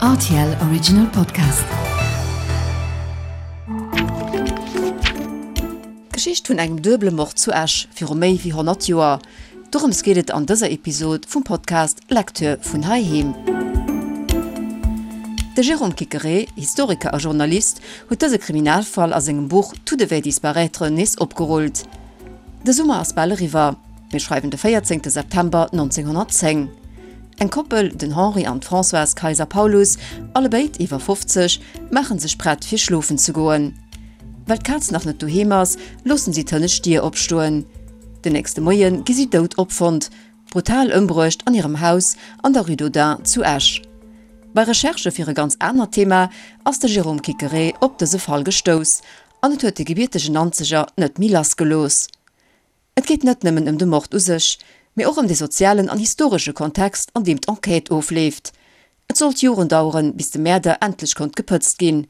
Rtl Original Podcast. D'Geschicht vun engem duebele Mord zu Esch viru méi wéi 100 Joer. Dorëms geet et an dëser Episod vum Podcast Lecture vun heiheem. De Jérôme Quiqueré, Historiker a Journalist, huet dëse Kriminalfall a sengem Buch Tout devait disparaître nees opgerullt. De Summer ass bal eriwwer. Mir schreiwen de 14 September 1910. Eng Koppel, den Henri an d'Françoise Kayser-Paulus, allebéid iwwer 50, maachen sech prett fir schlofen ze goen. Well d'Kaz nach net doheem ass, loossen si d'hënnescht Dier opstoen. Den nächste Moie gi si dout opfonnt, brutal ëmbruecht an hirem Haus an der Rue d'Audun zu Esch. Bei Recherchë fir e ganz anert Thema ass de Jérôme Quiqueré op dëse Fall gestouss an et huet de gebiertegen Nanzeger net méi lassgelooss. Et geet net nëmmen ëm de Mord u sech, mee och ëm de sozialen an historesche Kontext, an deem d'Enquête ofleeft. Et sollt Joren daueren, bis de Mäerder endlech konnt gepëtzt ginn.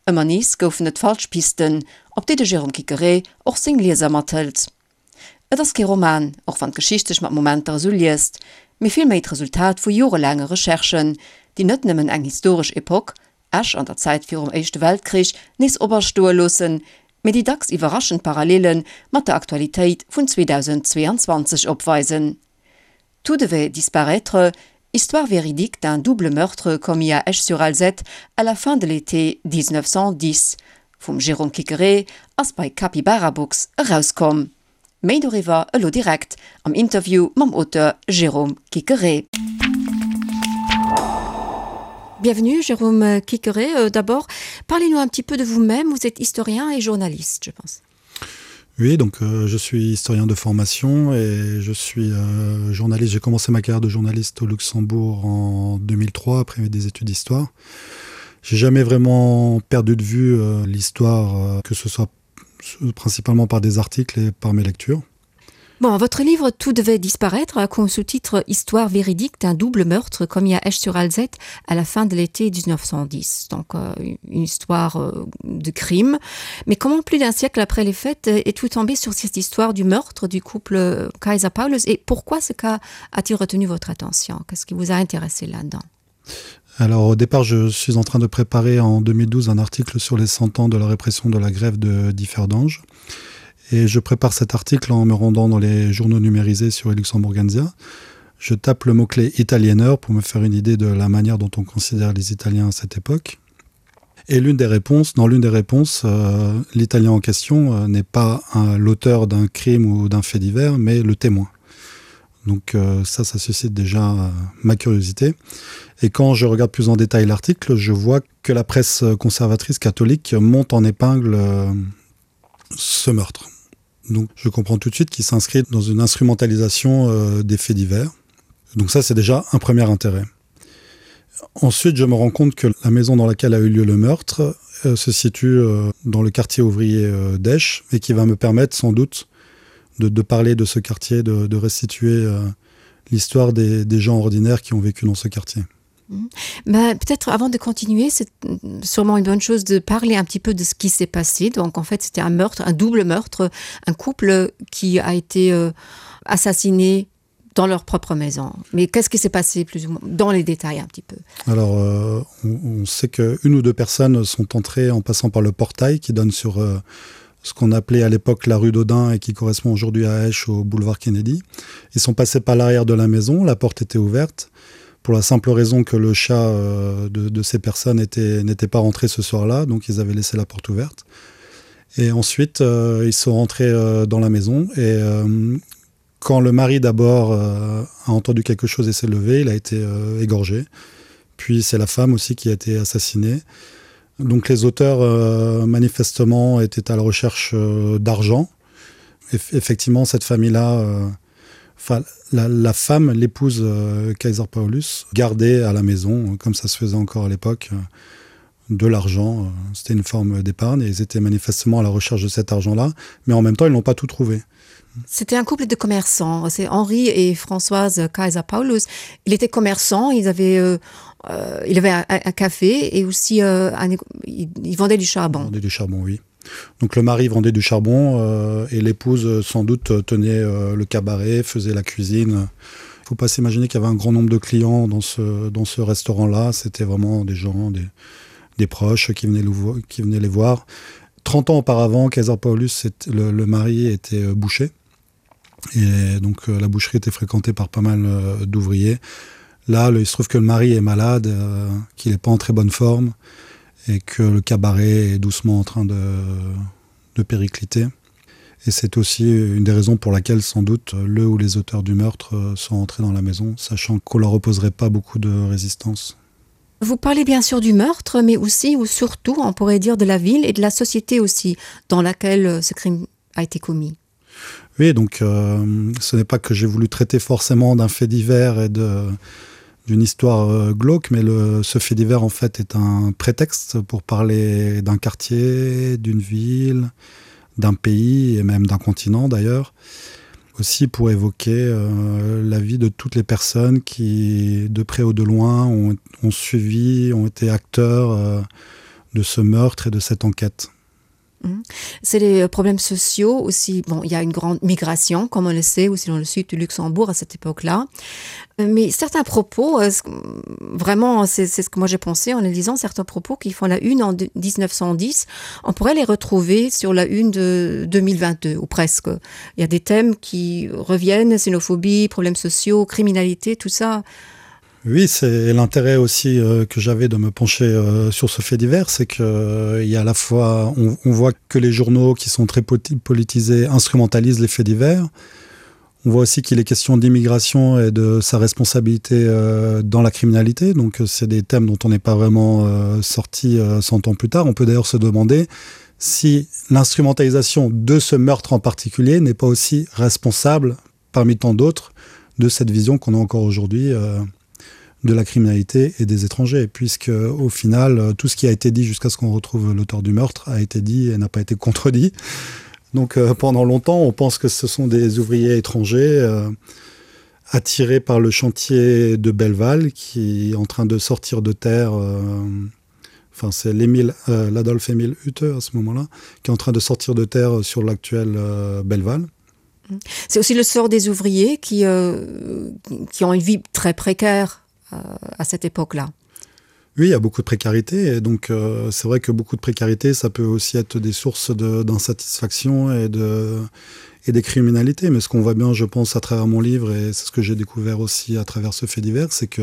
Ëmmer nees goufen et falsch Pisten, op déi de Jérôme Quiqueré och seng Lieser mathëlt. Et ass kee Roman, och wann d'Geschicht sech mat Momenter esou liest, mee villméi d'Resultat vu jorelaange Recherchen, déi net nëmmen eng historesch Epoch, Esch an der Zäit virum Éischte Weltkrich nees operstoe loossen, mee déi dacks iwwerraschend Parallele mat der Aktualitéit vun 2022 opweisen. Tout devait disparaître, histoire véridique d'un double meurtre commis à Esch-sur-Alzette à la fin de l'été 1910 vum Jérôme Quiqueré ass bei Capybara Books erauskomm. Méi doriwwer elo direkt am Interview mam Auteur Jérôme Quiqueré. Bienvenue Jérôme Quiqueré. Euh, d'abord, parlez-nous un petit peu de vous-même. Vous êtes historien et journaliste, je pense. Oui, donc euh, je suis historien de formation et je suis euh, journaliste. J'ai commencé ma carrière de journaliste au Luxembourg en 2003 après des études d'histoire. J'ai jamais vraiment perdu de vue euh, l'histoire, euh, que ce soit principalement par des articles et par mes lectures. Bon, votre livre Tout devait disparaître a comme sous-titre Histoire véridique d'un double meurtre commis à Esch-sur-Alzette à la fin de l'été 1910. Donc euh, une histoire euh, de crime. Mais comment plus d'un siècle après les fêtes euh, est tout tombé sur cette histoire du meurtre du couple euh, Kaiser Paulus et pourquoi ce cas a-t-il retenu votre attention Qu'est-ce qui vous a intéressé là-dedans Alors au départ, je suis en train de préparer en 2012 un article sur les 100 ans de la répression de la grève de Differdange. Et je prépare cet article en me rendant dans les journaux numérisés sur Luxembourgensia. Je tape le mot-clé italieneur pour me faire une idée de la manière dont on considère les Italiens à cette époque. Et l'une des réponses, dans l'une des réponses, euh, l'Italien en question euh, n'est pas l'auteur d'un crime ou d'un fait divers, mais le témoin. Donc euh, ça, ça suscite déjà euh, ma curiosité. Et quand je regarde plus en détail l'article, je vois que la presse conservatrice catholique monte en épingle euh, ce meurtre. Donc je comprends tout de suite qu'il s'inscrit dans une instrumentalisation euh, des faits divers. Donc ça, c'est déjà un premier intérêt. Ensuite, je me rends compte que la maison dans laquelle a eu lieu le meurtre euh, se situe euh, dans le quartier ouvrier euh, d'Esch et qui va me permettre sans doute de, de parler de ce quartier, de, de restituer euh, l'histoire des, des gens ordinaires qui ont vécu dans ce quartier. Mhm. Ben, peut-être avant de continuer, c'est sûrement une bonne chose de parler un petit peu de ce qui s'est passé. Donc en fait, c'était un meurtre, un double meurtre, un couple qui a été euh, assassiné dans leur propre maison. Mais qu'est-ce qui s'est passé plus ou moins dans les détails un petit peu Alors euh, on, on sait qu'une ou deux personnes sont entrées en passant par le portail qui donne sur euh, ce qu'on appelait à l'époque la rue d'Audin et qui correspond aujourd'hui à Esch au boulevard Kennedy. Ils sont passés par l'arrière de la maison, la porte était ouverte pour la simple raison que le chat euh, de, de ces personnes n'était pas rentré ce soir-là, donc ils avaient laissé la porte ouverte. Et ensuite, euh, ils sont rentrés euh, dans la maison et euh, quand le mari d'abord euh, a entendu quelque chose et s'est levé, il a été euh, égorgé. Puis c'est la femme aussi qui a été assassinée. Donc les auteurs euh, manifestement étaient à la recherche euh, d'argent. Eff effectivement, cette famille-là, euh, la, la femme, l'épouse euh, Kaiser Paulus, gardait à la maison, comme ça se faisait encore à l'époque, euh, de l'argent. Euh, c'était une forme d'épargne et ils étaient manifestement à la recherche de cet argent-là, mais en même temps, ils n'ont pas tout trouvé. C'était un couple de commerçants, c'est Henri et Françoise Kaiser Paulus. Il était commerçant, ils avaient, euh, euh, il avait un, un café et aussi euh, un, il, il vendait du charbon. Il vendait du charbon, oui. Donc le mari vendait du charbon euh, et l'épouse sans doute tenait euh, le cabaret, faisait la cuisine. Faut pas s'imaginer qu'il y avait un grand nombre de clients dans ce, dans ce restaurant-là. C'était vraiment des gens, des, des proches qui venaient, le, qui venaient les voir. 30 ans auparavant, Kaiser Paulus, le, le mari était euh, boucher. Et donc euh, la boucherie était fréquentée par pas mal euh, d'ouvriers. Là, le, il se trouve que le mari est malade, euh, qu'il n'est pas en très bonne forme et que le cabaret est doucement en train de, de péricliter. Et c'est aussi une des raisons pour laquelle sans doute le ou les auteurs du meurtre euh, sont entrés dans la maison, sachant qu'on leur opposerait pas beaucoup de résistance. Vous parlez bien sûr du meurtre, mais aussi ou surtout on pourrait dire de la ville et de la société aussi dans laquelle euh, ce crime a été commis. Oui, donc euh, ce n'est pas que j'ai voulu traiter forcément d'un fait divers et de d'une histoire euh, glauque, mais le, ce fait divers en fait est un prétexte pour parler d'un quartier, d'une ville, d'un pays et même d'un continent d'ailleurs aussi pour évoquer euh, la vie de toutes les personnes qui de près ou de loin ont, ont suivi ont été acteurs euh, de ce meurtre et de cette enquête. Mhm. C'est les euh, problèmes sociaux aussi. Bon, il y a une grande migration, comme on le sait, aussi dans le sud du Luxembourg à cette époque-là. Euh, mais certains propos, euh, vraiment, c'est ce que moi j'ai pensé en les lisant, certains propos qui font la une en 1910, on pourrait les retrouver sur la une de 2022 ou presque. Il y a des thèmes qui reviennent, xénophobie, problèmes sociaux, criminalité, tout ça. Oui, c'est l'intérêt aussi euh, que j'avais de me pencher euh, sur ce fait divers, c'est que euh, il y a à la fois on, on voit que les journaux qui sont très politisés instrumentalisent les faits divers. On voit aussi qu'il est question d'immigration et de sa responsabilité euh, dans la criminalité. Donc euh, c'est des thèmes dont on n'est pas vraiment euh, sorti euh, 100 ans plus tard. On peut d'ailleurs se demander si l'instrumentalisation de ce meurtre en particulier n'est pas aussi responsable parmi tant d'autres de cette vision qu'on a encore aujourd'hui euh, de la criminalité et des étrangers puisque au final euh, tout ce qui a été dit jusqu'à ce qu'on retrouve l'auteur du meurtre a été dit et n'a pas été contredit donc euh, pendant longtemps on pense que ce sont des ouvriers étrangers euh, attirés par le chantier de Belleval qui est en train de sortir de terre euh, enfin c'est l'émile euh, l'adolphe émile Hutte à ce moment là qui est en train de sortir de terre sur l'actuel euh, Belleval c'est aussi le sort des ouvriers qui euh, qui ont une vie très précaire euh, à cette époque là. Oui, il y a beaucoup de précarité et donc euh, c'est vrai que beaucoup de précarité ça peut aussi être des sources d'insatisfaction et de et des criminalités mais ce qu'on voit bien je pense à travers mon livre et c'est ce que j'ai découvert aussi à travers ce fait divers c'est que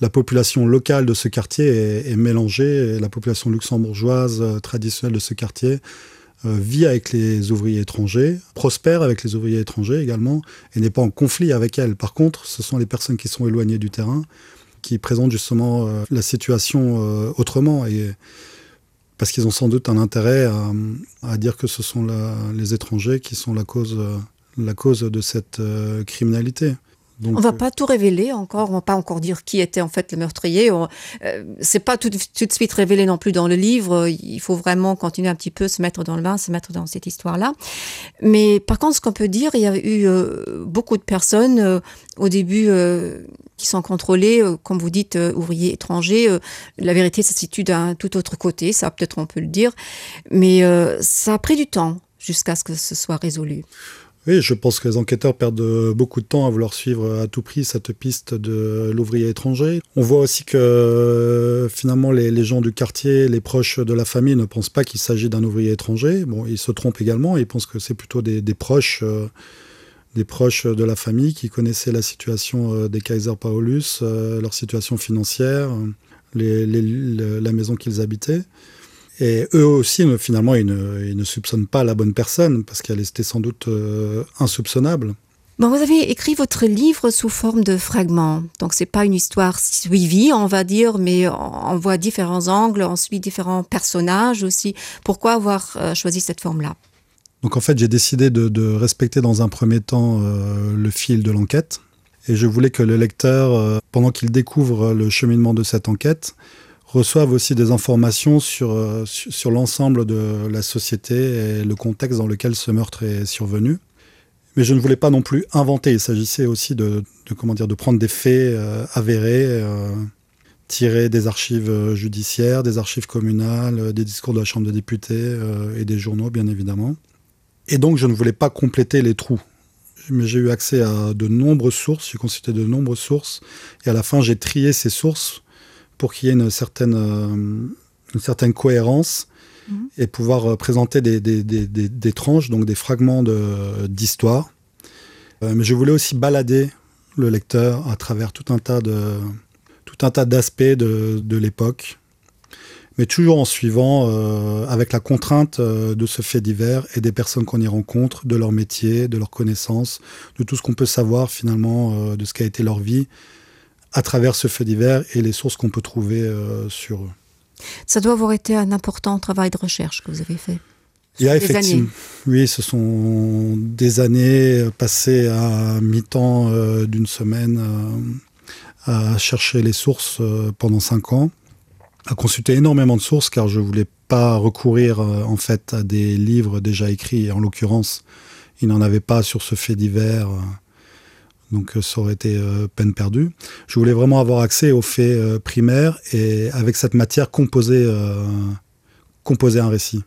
la population locale de ce quartier est, est mélangée et la population luxembourgeoise euh, traditionnelle de ce quartier euh, vit avec les ouvriers étrangers prospère avec les ouvriers étrangers également et n'est pas en conflit avec elle par contre ce sont les personnes qui sont éloignées du terrain qui présentent justement euh, la situation euh, autrement et parce qu'ils ont sans doute un intérêt à, à dire que ce sont la, les étrangers qui sont la cause euh, la cause de cette euh, criminalité. Donc, on va euh, pas tout révéler encore, on va pas encore dire qui était en fait le meurtrier. Euh, c'est pas tout, tout de suite révélé non plus dans le livre. Il faut vraiment continuer un petit peu se mettre dans le bain, se mettre dans cette histoire là. Mais par contre, ce qu'on peut dire, il y a eu euh, beaucoup de personnes euh, au début euh, qui sont contrôlées, euh, comme vous dites, euh, ouvriers étrangers. Euh, la vérité se situe d'un tout autre côté, ça peut-être on peut le dire. Mais euh, ça a pris du temps jusqu'à ce que ce soit résolu. Oui, je pense que les enquêteurs perdent euh, beaucoup de temps à vouloir suivre euh, à tout prix cette piste de l'ouvrier étranger. On voit aussi que euh, finalement les, les gens du quartier, les proches de la famille ne pensent pas qu'il s'agit d'un ouvrier étranger. Bon, ils se trompent également, ils pensent que c'est plutôt des, des proches euh, des proches de la famille qui connaissaient la situation des Kaiser Paulus, leur situation financière, les, les, la maison qu'ils habitaient. Et eux aussi, finalement, ils ne, ils ne soupçonnent pas la bonne personne parce qu'elle était sans doute euh, insoupçonnable. Bon, vous avez écrit votre livre sous forme de fragments. Donc c'est pas une histoire suivie, on va dire, mais on voit différents angles, on suit différents personnages aussi. Pourquoi avoir euh, choisi cette forme-là Donc en fait, j'ai décidé de, de respecter dans un premier temps euh, le fil de l'enquête. Et je voulais que le lecteur, euh, pendant qu'il découvre le cheminement de cette enquête, reçoivent aussi des informations sur, euh, sur l'ensemble de la société et le contexte dans lequel ce meurtre est survenu. Mais je ne voulais pas non plus inventer, il s'agissait aussi de, de, comment dire, de prendre des faits euh, avérés, euh, tirés des archives euh, judiciaires, des archives communales, euh, des discours de la Chambre des députés euh, et des journaux bien évidemment. Et donc je ne voulais pas compléter les trous. Mais j'ai eu accès à de nombreuses sources, j'ai consulté de nombreuses sources et à la fin j'ai trié ces sources pour qu'il y ait une certaine, euh, une certaine cohérence mmh. et pouvoir euh, présenter des, des, des, des, des tranches, donc des fragments d'histoire. Euh, mais je voulais aussi balader le lecteur à travers tout un tas de tout un tas d'aspects de, de l'époque mais toujours en suivant euh, avec la contrainte euh, de ce fait divers et des personnes qu'on y rencontre, de leur métier, de leur connaissance, de tout ce qu'on peut savoir finalement euh, de ce qu'a été leur vie à travers ce fait divers et les sources qu'on peut trouver euh, sur eux. Ça doit avoir été un important travail de recherche que vous avez fait. Il y a effectivement oui, ce sont des années passées à mi-temps euh, d'une semaine euh, à chercher les sources euh, pendant cinq ans à consulter énormément de sources car je voulais pas recourir euh, en fait à des livres déjà écrits et en l'occurrence il n'en avait pas sur ce fait divers euh, donc euh, ça aurait été euh, peine perdue je voulais vraiment avoir accès aux faits euh, primaires et avec cette matière composer euh, composer un récit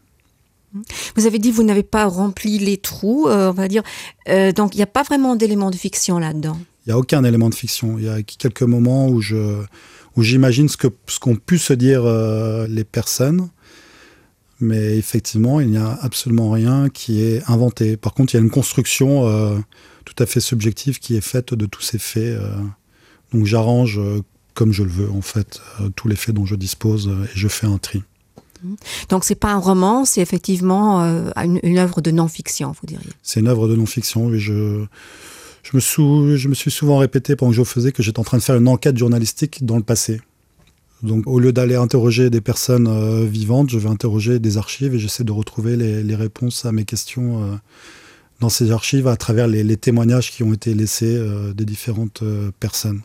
vous avez dit vous n'avez pas rempli les trous euh, on va dire euh, donc il n'y a pas vraiment d'éléments de fiction là dedans il n'y a aucun élément de fiction il y a quelques moments où je où j'imagine ce que ce qu'ont pu se dire euh, les personnes mais effectivement il n'y a absolument rien qui est inventé par contre il y a une construction euh, tout à fait subjective qui est faite de tous ces faits euh, donc j'arrange euh, comme je le veux en fait euh, tous les faits dont je dispose euh, et je fais un tri donc c'est pas un roman c'est effectivement euh, une, une œuvre de non fiction vous diriez c'est une œuvre de non fiction et je je me sous je me suis souvent répété pendant que je faisais que j'étais en train de faire une enquête journalistique dans le passé Donc au lieu d'aller interroger des personnes euh, vivantes, je vais interroger des archives et j'essaie de retrouver les, les réponses à mes questions euh, dans ces archives à travers les, les témoignages qui ont été laissés euh, des différentes euh, personnes.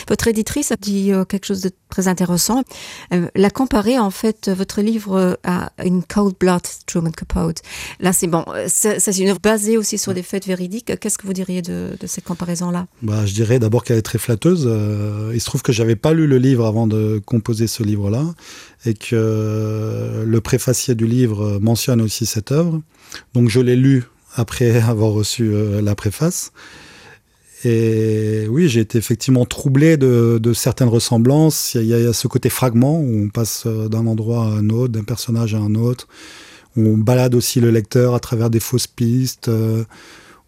Votre éditrice a dit euh, quelque chose de très intéressant. Euh, la comparer en fait votre livre euh, à une cold blood Truman Capote. Là c'est bon, c'est une œuvre basée aussi sur des faits véridiques. Qu'est-ce que vous diriez de, de cette comparaison là bah, Je dirais d'abord qu'elle est très flatteuse. Euh, il se trouve que j'avais pas lu le livre avant de composer ce livre là et que le préfacier du livre mentionne aussi cette œuvre. Donc je l'ai lu après avoir reçu euh, la préface. Et oui, j'ai été effectivement troublé de, de certaines ressemblances. Il y, a, il y a ce côté fragment où on passe euh, d'un endroit à un autre, d'un personnage à un autre. On balade aussi le lecteur à travers des fausses pistes. Euh,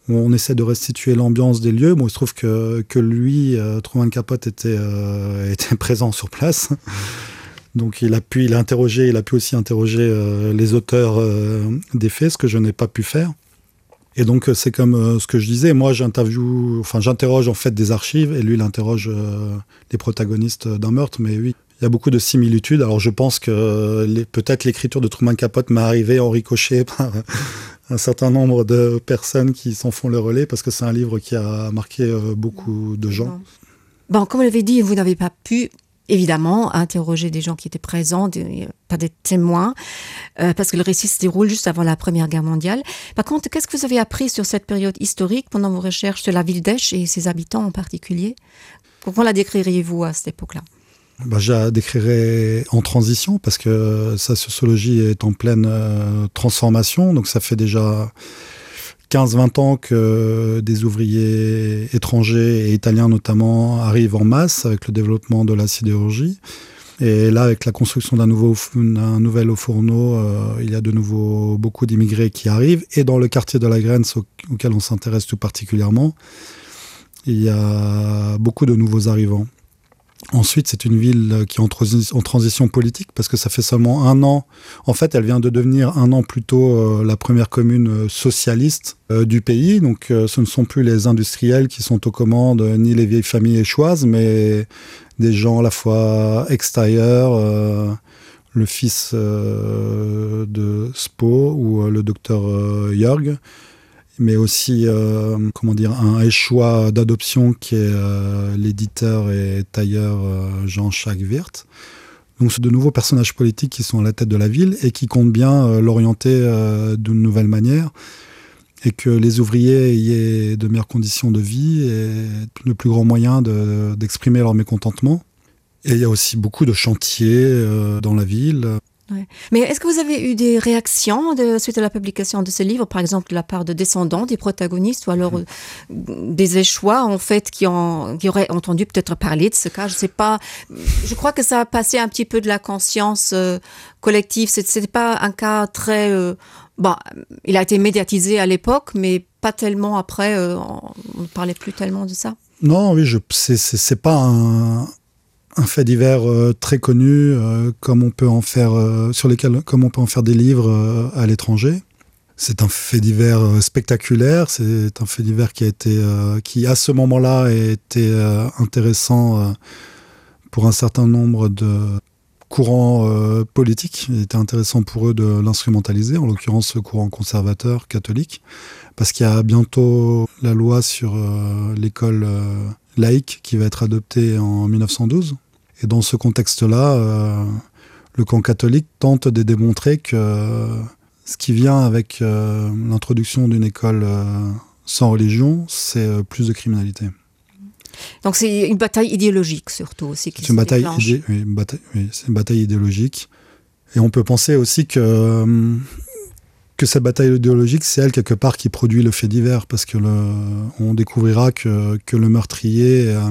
où on essaie de restituer l'ambiance des lieux. Bon, il se trouve que, que lui, euh, Truman Capote, était, euh, était présent sur place. Donc il a pu il a interrogé, il a pu aussi interroger euh, les auteurs euh, des faits, ce que je n'ai pas pu faire. Et donc euh, c'est comme euh, ce que je disais, moi j'interview enfin j'interroge en fait des archives et lui il interroge euh, les protagonistes d'un meurtre mais oui il y a beaucoup de similitudes alors je pense que euh, peut-être l'écriture de Truman Capote m'est arrivé en ricochet par un certain nombre de personnes qui s'en font le relais parce que c'est un livre qui a marqué euh, beaucoup de gens. Bon comme vous l'avez dit vous n'avez pas pu évidemment interroger des gens qui étaient présents, des, pas des témoins, euh, parce que le récit se déroule juste avant la Première Guerre mondiale. Par contre, qu'est-ce que vous avez appris sur cette période historique pendant vos recherches de la ville d'Esch et ses habitants en particulier Comment la décririez-vous à cette époque-là bah, je la décrirais en transition parce que sa sociologie est en pleine euh, transformation donc ça fait déjà 15-20 ans que des ouvriers étrangers et italiens notamment arrivent en masse avec le développement de la sidérurgie. Et là, avec la construction d'un nouveau un nouvel haut fourneau, euh, il y a de nouveau beaucoup d'immigrés qui arrivent et dans le quartier de la Graine auquel on s'intéresse tout particulièrement, il y a beaucoup de nouveaux arrivants. Ensuite, c'est une ville qui est en, transi en transition politique parce que ça fait seulement un an. En fait, elle vient de devenir un an plus tôt euh, la première commune euh, socialiste euh, du pays. Donc euh, ce ne sont plus les industriels qui sont aux commandes euh, ni les vieilles familles échoises, mais des gens à la fois extérieurs, euh, le fils euh, de Spo ou euh, le docteur euh, Jörg mais aussi euh, comment dire un échois d'adoption qui est euh, l'éditeur et tailleur euh, Jean-Jacques Wirth. Donc c'est de nouveaux personnages politiques qui sont à la tête de la ville et qui comptent bien euh, l'orienter euh, d'une nouvelle manière et que les ouvriers y aient de meilleures conditions de vie et le plus grand moyen d'exprimer de, leur mécontentement. Et il y a aussi beaucoup de chantiers euh, dans la ville. Ouais. Mais est-ce que vous avez eu des réactions de, suite à la publication de ce livre, par exemple de la part de descendants des protagonistes ou alors mmh. des échois en fait qui, ont, qui auraient entendu peut-être parler de ce cas je sais pas je crois que ça a passé un petit peu de la conscience euh, collective ce n'est pas un cas très euh, bon il a été médiatisé à l'époque mais pas tellement après euh, on ne parlait plus tellement de ça non oui je c'est pas un un fait divers euh, très connu euh, comme on peut en faire euh, sur lesquels comme on peut en faire des livres euh, à l'étranger c'est un fait divers euh, spectaculaire c'est un fait divers qui a été euh, qui à ce moment là a été euh, intéressant euh, pour un certain nombre de courants euh, politiques il était intéressant pour eux de l'instrumentaliser en l'occurrence ce courant conservateur catholique parce qu'il y a bientôt la loi sur euh, l'école euh, laïque qui va être adoptée en 1912 et dans ce contexte là euh, le camp catholique tente de démontrer que euh, ce qui vient avec euh, l'introduction d'une école euh, sans religion c'est euh, plus de criminalité donc c'est une bataille idéologique surtout aussi c'est une bataille idé oui, une bataille, oui, une bataille idéologique et on peut penser aussi que euh, que cette bataille idéologique c'est elle quelque part qui produit le fait divers parce que le on découvrira que, que le meurtrier euh,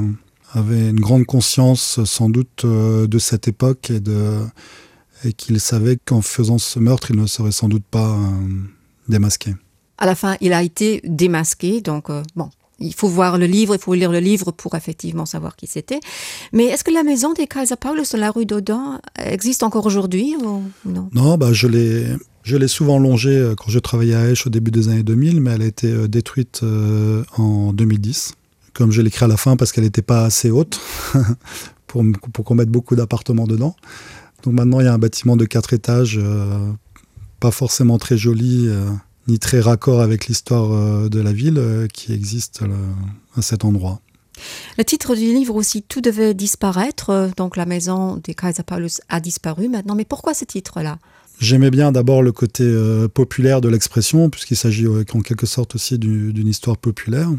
avait une grande conscience sans doute euh, de cette époque et de et qu'il savait qu'en faisant ce meurtre il ne serait sans doute pas euh, démasqué à la fin il a été démasqué donc euh, bon il faut voir le livre il faut lire le livre pour effectivement savoir qui c'était mais est-ce que la maison des Kaiser Paulus sur la rue d'Audin existe encore aujourd'hui ou non non bah je l'ai je l'ai souvent longée euh, quand je travaillais à Esch au début des années 2000 mais elle a été euh, détruite euh, en 2010 comme je l'écris à la fin parce qu'elle n'était pas assez haute pour, pour qu'on mette beaucoup d'appartements dedans donc maintenant il y a un bâtiment de quatre étages euh, pas forcément très joli euh, ni très raccord avec l'histoire euh, de la ville euh, qui existe euh, à cet endroit. Le titre du livre aussi tout devait disparaître euh, donc la maison des Kaiser Paulus a disparu maintenant mais pourquoi ce titre là J'aimais bien d'abord le côté euh, populaire de l'expression puisqu'il s'agit euh, en quelque sorte aussi d'une histoire populaire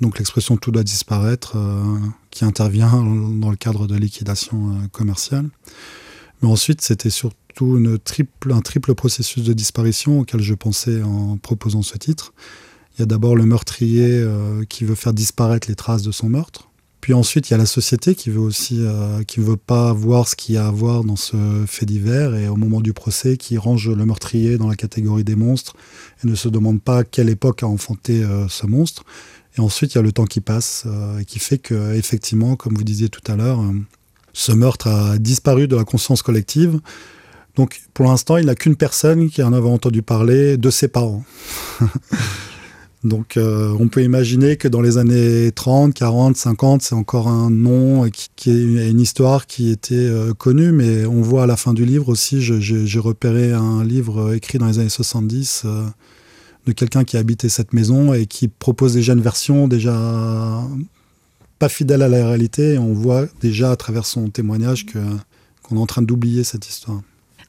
donc l'expression tout doit disparaître euh, qui intervient dans le cadre de liquidation euh, commerciale. Mais ensuite c'était surtout une triple, un triple processus de disparition auquel je pensais en proposant ce titre. Il y a d'abord le meurtrier euh, qui veut faire disparaître les traces de son meurtre. Puis ensuite, il y a la société qui veut aussi euh, qui veut pas voir ce qu'il y a à voir dans ce fait divers et au moment du procès qui range le meurtrier dans la catégorie des monstres et ne se demande pas quelle époque a enfanté euh, ce monstre. Et ensuite, il y a le temps qui passe euh, et qui fait que effectivement, comme vous disiez tout à l'heure, euh, ce meurtre a disparu de la conscience collective. Donc pour l'instant, il n'a qu'une personne qui en avait entendu parler de ses parents. Donc euh, on peut imaginer que dans les années 30, 40, 50, c'est encore un nom qui, qui est une histoire qui était euh, connue, mais on voit à la fin du livre aussi, j'ai repéré un livre écrit dans les années 70 euh, de quelqu'un qui habitait cette maison et qui propose déjà une version déjà pas fidèle à la réalité et on voit déjà à travers son témoignage que qu'on est en train d'oublier cette histoire.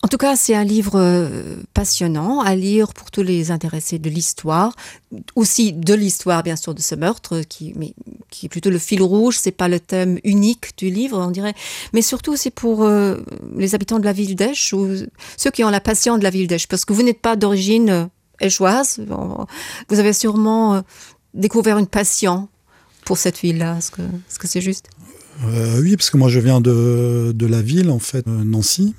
En tout cas, c'est un livre euh, passionnant à lire pour tous les intéressés de l'histoire, aussi de l'histoire bien sûr de ce meurtre qui, mais, qui est plutôt le fil rouge, c'est pas le thème unique du livre, on dirait, mais surtout c'est pour euh, les habitants de la ville d'Esch ou ceux qui ont la passion de la ville d'Esch, parce que vous n'êtes pas d'origine euh, échoise, vous avez sûrement euh, découvert une passion pour cette ville-là, est-ce que c'est -ce juste euh, Oui, parce que moi je viens de, de la ville, en fait, Nancy.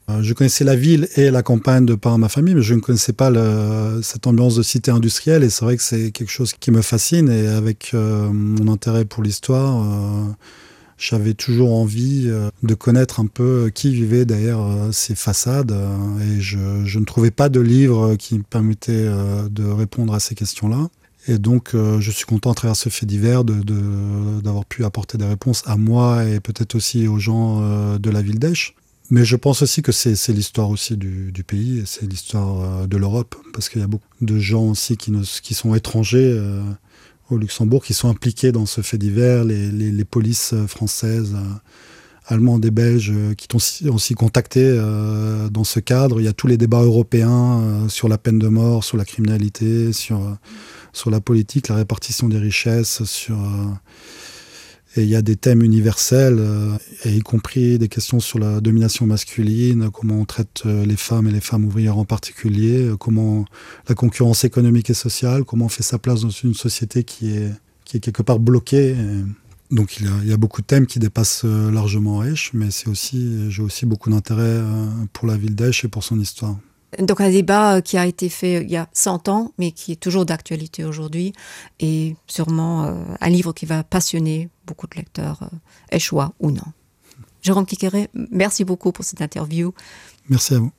Euh, je connaissais la ville et la campagne de par ma famille, mais je ne connaissais pas le, cette ambiance de cité industrielle et c'est vrai que c'est quelque chose qui me fascine et avec euh, mon intérêt pour l'histoire, euh, j'avais toujours envie euh, de connaître un peu qui vivait derrière euh, ces façades euh, et je, je ne trouvais pas de livre qui me permettait euh, de répondre à ces questions-là. Et donc euh, je suis content à travers ce fait divers d'avoir pu apporter des réponses à moi et peut-être aussi aux gens euh, de la ville d'Esch. Mais je pense aussi que c'est l'histoire aussi du, du pays c'est l'histoire euh, de l'Europe parce qu'il y a beaucoup de gens aussi qui, ne, qui sont étrangers euh, au Luxembourg qui sont impliqués dans ce fait divers, les, les, les polices euh, françaises, euh, allemandes et belges euh, qui ont aussi, aussi contacté euh, dans ce cadre. Il y a tous les débats européens euh, sur la peine de mort, sur la criminalité, sur, euh, sur la politique, la répartition des richesses, sur euh, Et il y a des thèmes universels, euh, et y compris des questions sur la domination masculine, comment on traite euh, les femmes et les femmes ouvrières en particulier, euh, comment la concurrence économique et sociale, comment on fait sa place dans une société qui est, qui est quelque part bloquée. Et donc il y, a, il y a beaucoup de thèmes qui dépassent euh, largement Esch, mais c'est aussi j'ai aussi beaucoup d'intérêt pour la ville d'Esch et pour son histoire. Donc un débat qui a été fait il y a 100 ans, mais qui est toujours d'actualité aujourd'hui et sûrement un livre qui va passionner beaucoup de lecteurs échois ou non. Jérôme Kikéré, merci beaucoup pour cette interview. Merci à vous.